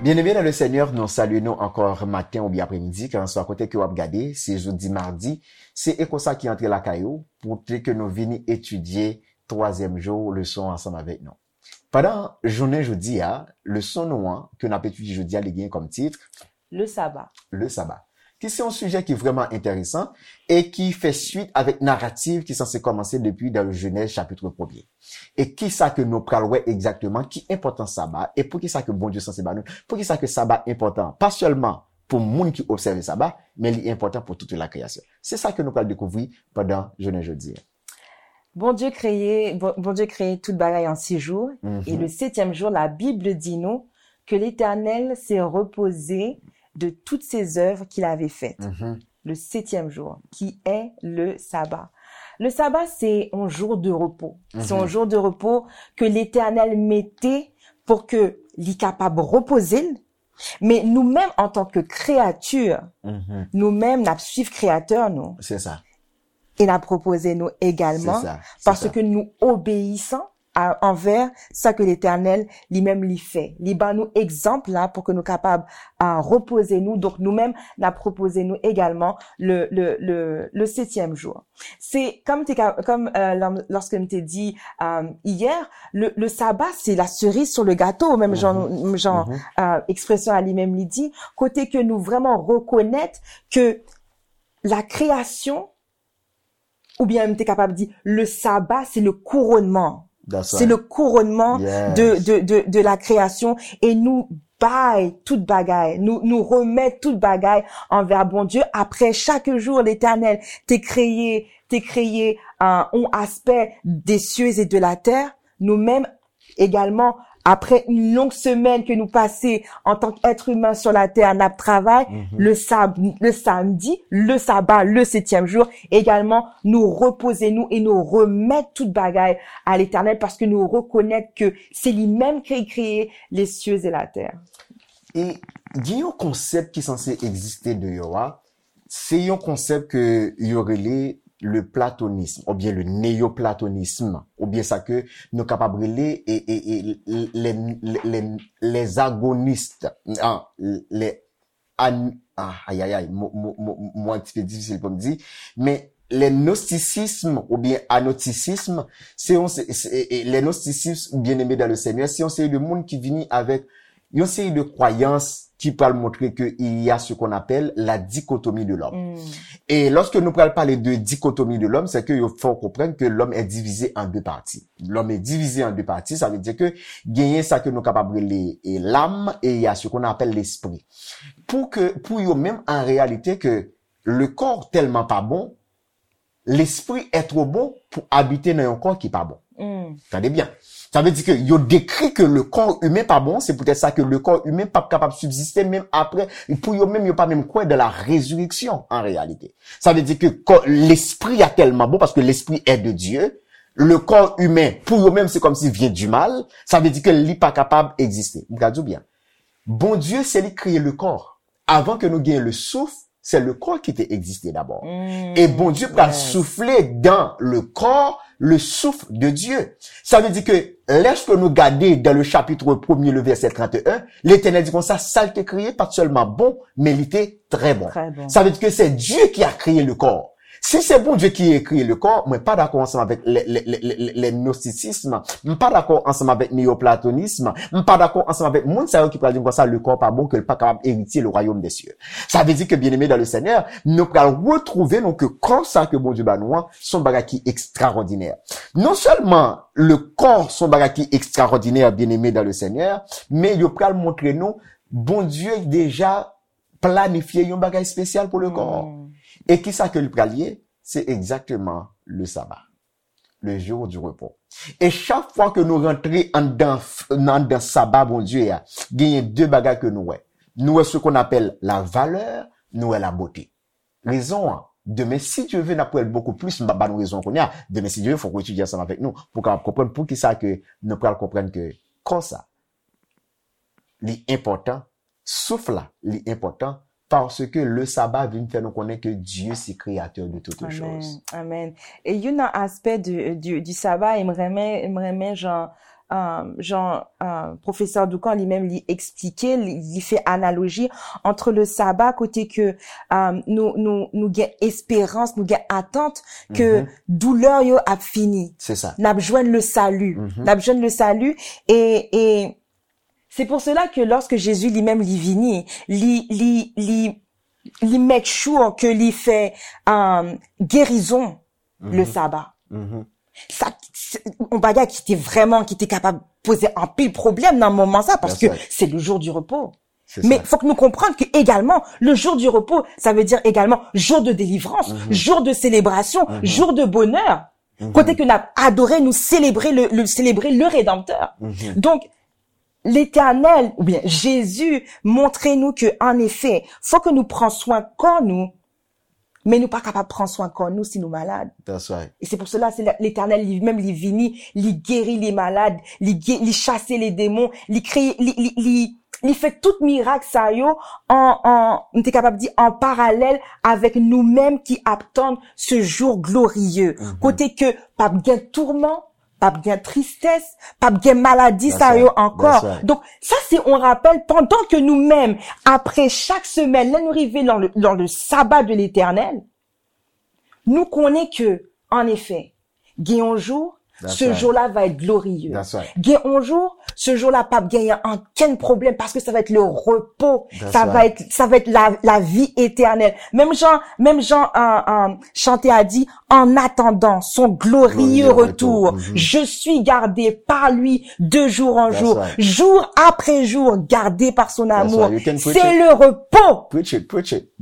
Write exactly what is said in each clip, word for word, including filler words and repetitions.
Byeneme nan le Senyè, nou salye nou ankò maten oubyen apremidi, kèlkanswa kote ke w ap gade, se jodi madi, se Eko sa ki antre lakay ou, pou te ke nou vini etidye twazyèm jou leson ansanm avèk nou. Pandan jounen jodi a, leson nou an, ke n ap etidye jodi a, li gen kòm tit, Le Saba. Le Saba. Ki se yon sijè ki vrèman enteresan e ki fè swit avèk naratif ki sanse kòmanse depi dan Jenèz chapit premye. E ki sa ke nou pral wè egzakteman, ki enpòtans Saba, e poukisa ke Bondye sanse ba nou, poukisa ke Saba enpòtan, pa sèlman pou moun ki obsève Saba, men li enpòtan pou tout la kreyasyon. Se sa ke nou pral dekouvri pandan jounen jodi a. Bondye kreye, Bon- Bondye kreye tout bagay an sis jou, Mhm. Et le septième jour, la Bible dit nous que l'Éternel s'est reposé de toutes ses œuvres qu'il avait faites. Mhm. Le septième jour, qui est le sabbat. Le sabbat, c'est un jour de repos. C'est un Mhm. jour de repos que l'Éternel mettait pour que li kapab repoze l. Men nou menm, an tan ke kreyati, Mhm. nou menm, n ap swiv Kreyatè nou. Se sa. E n ap repoze nou egalman, Se sa, se paske sa. Nou obeyisan a, anvè sa ke Letènèl li menm li fè. Li ban nou egzanp la pou ke nou kapab a, repoze nou. Donk, nou menm, n ap repoze nou egalman le, le, le, le septième jour. Se, kòm te ka, kòm, euh, lò- lòske m te di euh, hier, le, le sabbat, c'est la cerise sur le gâteau, menm jan, menm jan euh, ekspresyon a li menm li di, kote ke nou vrèman rekonèt ke la création, oubyen m te kapab di, le sabbat, c'est le couronnement. That's C'est right. Le couronnement Yes. de, de, de, de la création. E nou bay tout bagay, nou, nou remèt tout bagay anvè Bondye. Apre, chak jou, Letènèl te kreye, te kreye euh, yon aspè des cieux et de la terre. Nou menm, egalman, apre yon long semèn ke nou pase antan k èt imen sou latè, n ap travay, le, sab, le samdi, le sabbat, le septième jour, egalman, nou repoze nou e nou remèt tout bagay a Letènèl, paske nou rekonèt ke se li menm ki kreye les cieux et la terre. E gen yon konsèp ki sanse egziste deyò a, se yon konsèp ke yo rele le platonisme, oubyen le néoplatonisme, oubyen sa ke nou kapab rele e, e, e, les, les, les agonistes, ah, les an, ah, ayayay, mo, mo, mo, mo an ti pe difisil pou m di, men le gnostisisme oubyen anotisisme, se yon, se, se, e, e, le gnostisisme, byeneme dan le Senyè, se yon seri de moun ki vini avèk yon seri de kwayans ki pral montre ke il y a ce qu'on appelle la dichotomie de l'homme. E lòske nou pral pale de dichotomie de l'homme, se ke yo fè w konprann ke l'homme est divisé en deux parties. L'homme est divisé en deux parties, sa vle di ke genyen sa ke nou kapab rele e, l'âme e il y a ce qu'on appelle l'esprit. Pou ke, pou yo menm, an reyalite, ke le corps tèlman pa bon, l'esprit est trop bon pou abite nan yon kò ki pa bon. Tande byen. Sa vle di ke yo dekri ke le corps humain pa bon, se poutèt sa ke le corps humain p ap kapab sibziste menm apre, pou yo menm, yo pa menm kwè dans la résurrection en réalité. Sa vle di ke kò, lespri a tèlman bon, paske l'esprit est de Dieu, le corps humain, pou yo menm, se kòmsi vient du mal, sa vle di ke li pa kapab egziste. M ka di w byen. Bondye, se li k kreye le corps. Avan ke nou genyen le souffle, c'est le corps qui te existe d'abord. E Bondye pral soufle dans le corps le souffle de Dieu. Sa vle di ke lèske nou gade dans le chapitre premier, le verset trente et un, Letènèl di konsa, sa l te kreye pa t sèlman bon, men li te trè bon. Trè bon. Sa vle di ke c'est Dieu qui a créé le corps. Si se Bondye ki kreye le corps, mwen pa dakò ansanm avèk le, le, le, le, le gnostisisme, m pa dakò ansanm avèk neoplatonisme, m pa dakò ansanm avèk moun sa yo ki pral di m konsa le corps pa bon, ke l pa kapab eritye le royaume des cieux. Sa vle di ke, byeneme dans le Senyè, nou pral retwouve nou ke kò sa ke Bondye ba nou an, se yon bagay ki ekstraòdinè. Non sèlman le corps se yon bagay ki ekstraòdinè, byeneme dans le Senyè, men yo pral montre nou Bondye deja planifye yon bagay espesyal pou le corps. E ki sa ke li pral ye? Se egzakteman le sabbat, le jour du repos. E chak fwa ke nou rantre anndan, anndan saba Bondye a, genyen de bagay ke nou wè. Nou wè ce qu'on appelle la valeur, nou wè la beauté. Rezon an, demen, si Dye ve, n ap wè l bokou plis, m p ap ba nou rezon an kounye a. Demen, si Dye ve, fòk ou etidye ansanm avèk nou pou w kapab konprann poukisa ke nou pral konprann ke kò sa, li enpòtan, souf la, li enpòtan Parce que le sabbat vient faire nous connaître que Dieu, c'est créateur de toutes choses. Amen. Amen. E youn nan aspè du, du, du sabbat, e m renmen, m renmen jan, um, jan uh, pwofesè Doukan li menm li eksplike, li, li fè analoji entre le sabbat kote ke um, nou, nou, nou gen esperans, nou gen atant ke mm -hmm. doulè yo ap fini. C'est ça. N ap jwenn le salut. Mm -hmm. N ap jwenn le salut e, e C'est pour cela que lorsque Jésus lui-même li vini, li, li, li, li make sure ke li fè um, gerizon mm -hmm. le sabbat. Mm -hmm. Sa, se yon bagay ki te vrèman, ki te kapab poze anpil pwoblèm nan moman sa, paske se le jour du repos. Men fòk nou konprann ke egalman, le jour du repos, sa vle di egalman jour de délivrance, mm -hmm. jour de célébration, mm -hmm. jour de bonheur. Mm -hmm. Kote ke n ap adore, nou selebre le, le, selebre le Redanmtè. Mm -hmm. Donk, Letènèl, oubyen Jezi, montre nou ke, an efè, fòk nou pran swen kò nou, men nou pa kapab pran swen kò nou si nou malad. That's right. E se pou sela, se Letènèl li menm li vini, li geri li malad, li, li chase le demon, li kreye, li, li, li, li fè tout mirak sa yo an, an, m te kapab di, an paralèl avèk nou menm ki ap tann ce jour glorieux. Mm -hmm. Kote ke p ap gen tourman, p ap gen tristès, p ap gen maladi sa yo ankò. Donk, sa se yon rapèl pandan ke nou menm, apre chak semèn, lè nou rive dans le, dans le sabbat de l'Éternel, nou konnen ke, an efè, gen yon jou, ce jour-là va être glorieux. Gen yon jou, ce jour-là p ap genyen ankenn pwoblèm paske sa va être le repos. Ça va être, ça va être la, la vie éternelle. Menm jan, menm jan uh, uh, chante a di, en attendant son glorieux retour, je suis gardé par lui de jour en jour, jour après jour, gardé par son amour. C'est le repos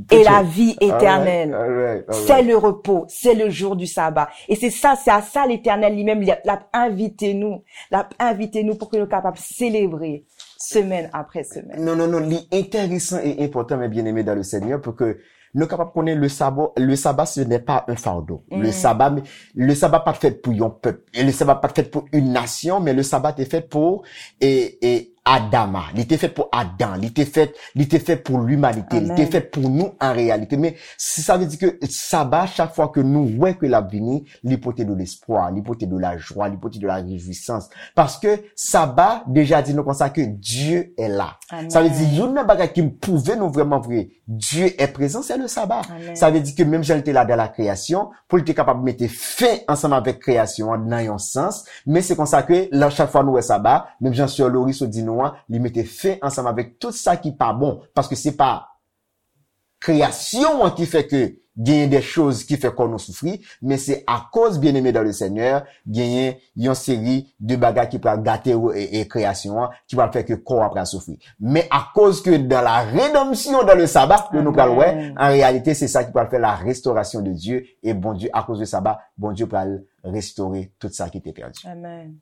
et la vie éternelle. C'est le repos, c'est le jour du sabbat. E se sa, se a sa Letènèl li menm, l ap envite nou, l ap envite nou pou ke nou kapab selebre semèn apre semèn. Non, non, non, li enteresan e enpòtan, mes bien-aimés dans le Seigneur, pou ke nou kapab konnen le sabbat, le sabbat, ce n'est pas un fardeau. Mm. Le sabbat, le sabbat pa t fèt pou yon pèp. E le sabbat pa t fèt pou une nation, men le sabbat te fèt pou e, e Adama. Li te fèt pou Adan. Li te fèt, li te fèt pou limanite. Li te fèt pou nou an reyalite. Men si sa vle di ke sabbat, chak fwa ke nou wè ke l ap vini, li pote de lespwa, li pote de la jwa, li pote de la rejwisans. Paske sabbat deja di nou konsa ke Dieu est là. Sa vle di, youn nan bagay ki pwouve nou vrèman vre Dieu est présent, c'est le sabbat. Sa vle di ke menm jan li te la dans la création, pou li te kapab mete fen ansanm avèk kreyasyon an nan yon sans, men se konsa ke la, chak fwa nou wè sabbat, menm jan sè Loris di nou an, li mete fen ansanm avèk tout sa ki pa bon, paske se pa kreyasyon an ki fè ke genyen de choz ki fè kò nou soufri, men se akoz, bien-aimé dans le Seigneur, genyen yon seri de bagay ki pral gate e, e kreyasyon an, ki pral fè ke kò a pral soufri. Men akoz ke dans la rédemption, dans le sabbat, ke nou pral wè, an reyalite, se sa ki pral fè la restauration de Dieu, e Bondye, akoz de sabbat, Bondye pral restore tout sa ki te pèdi. Amen.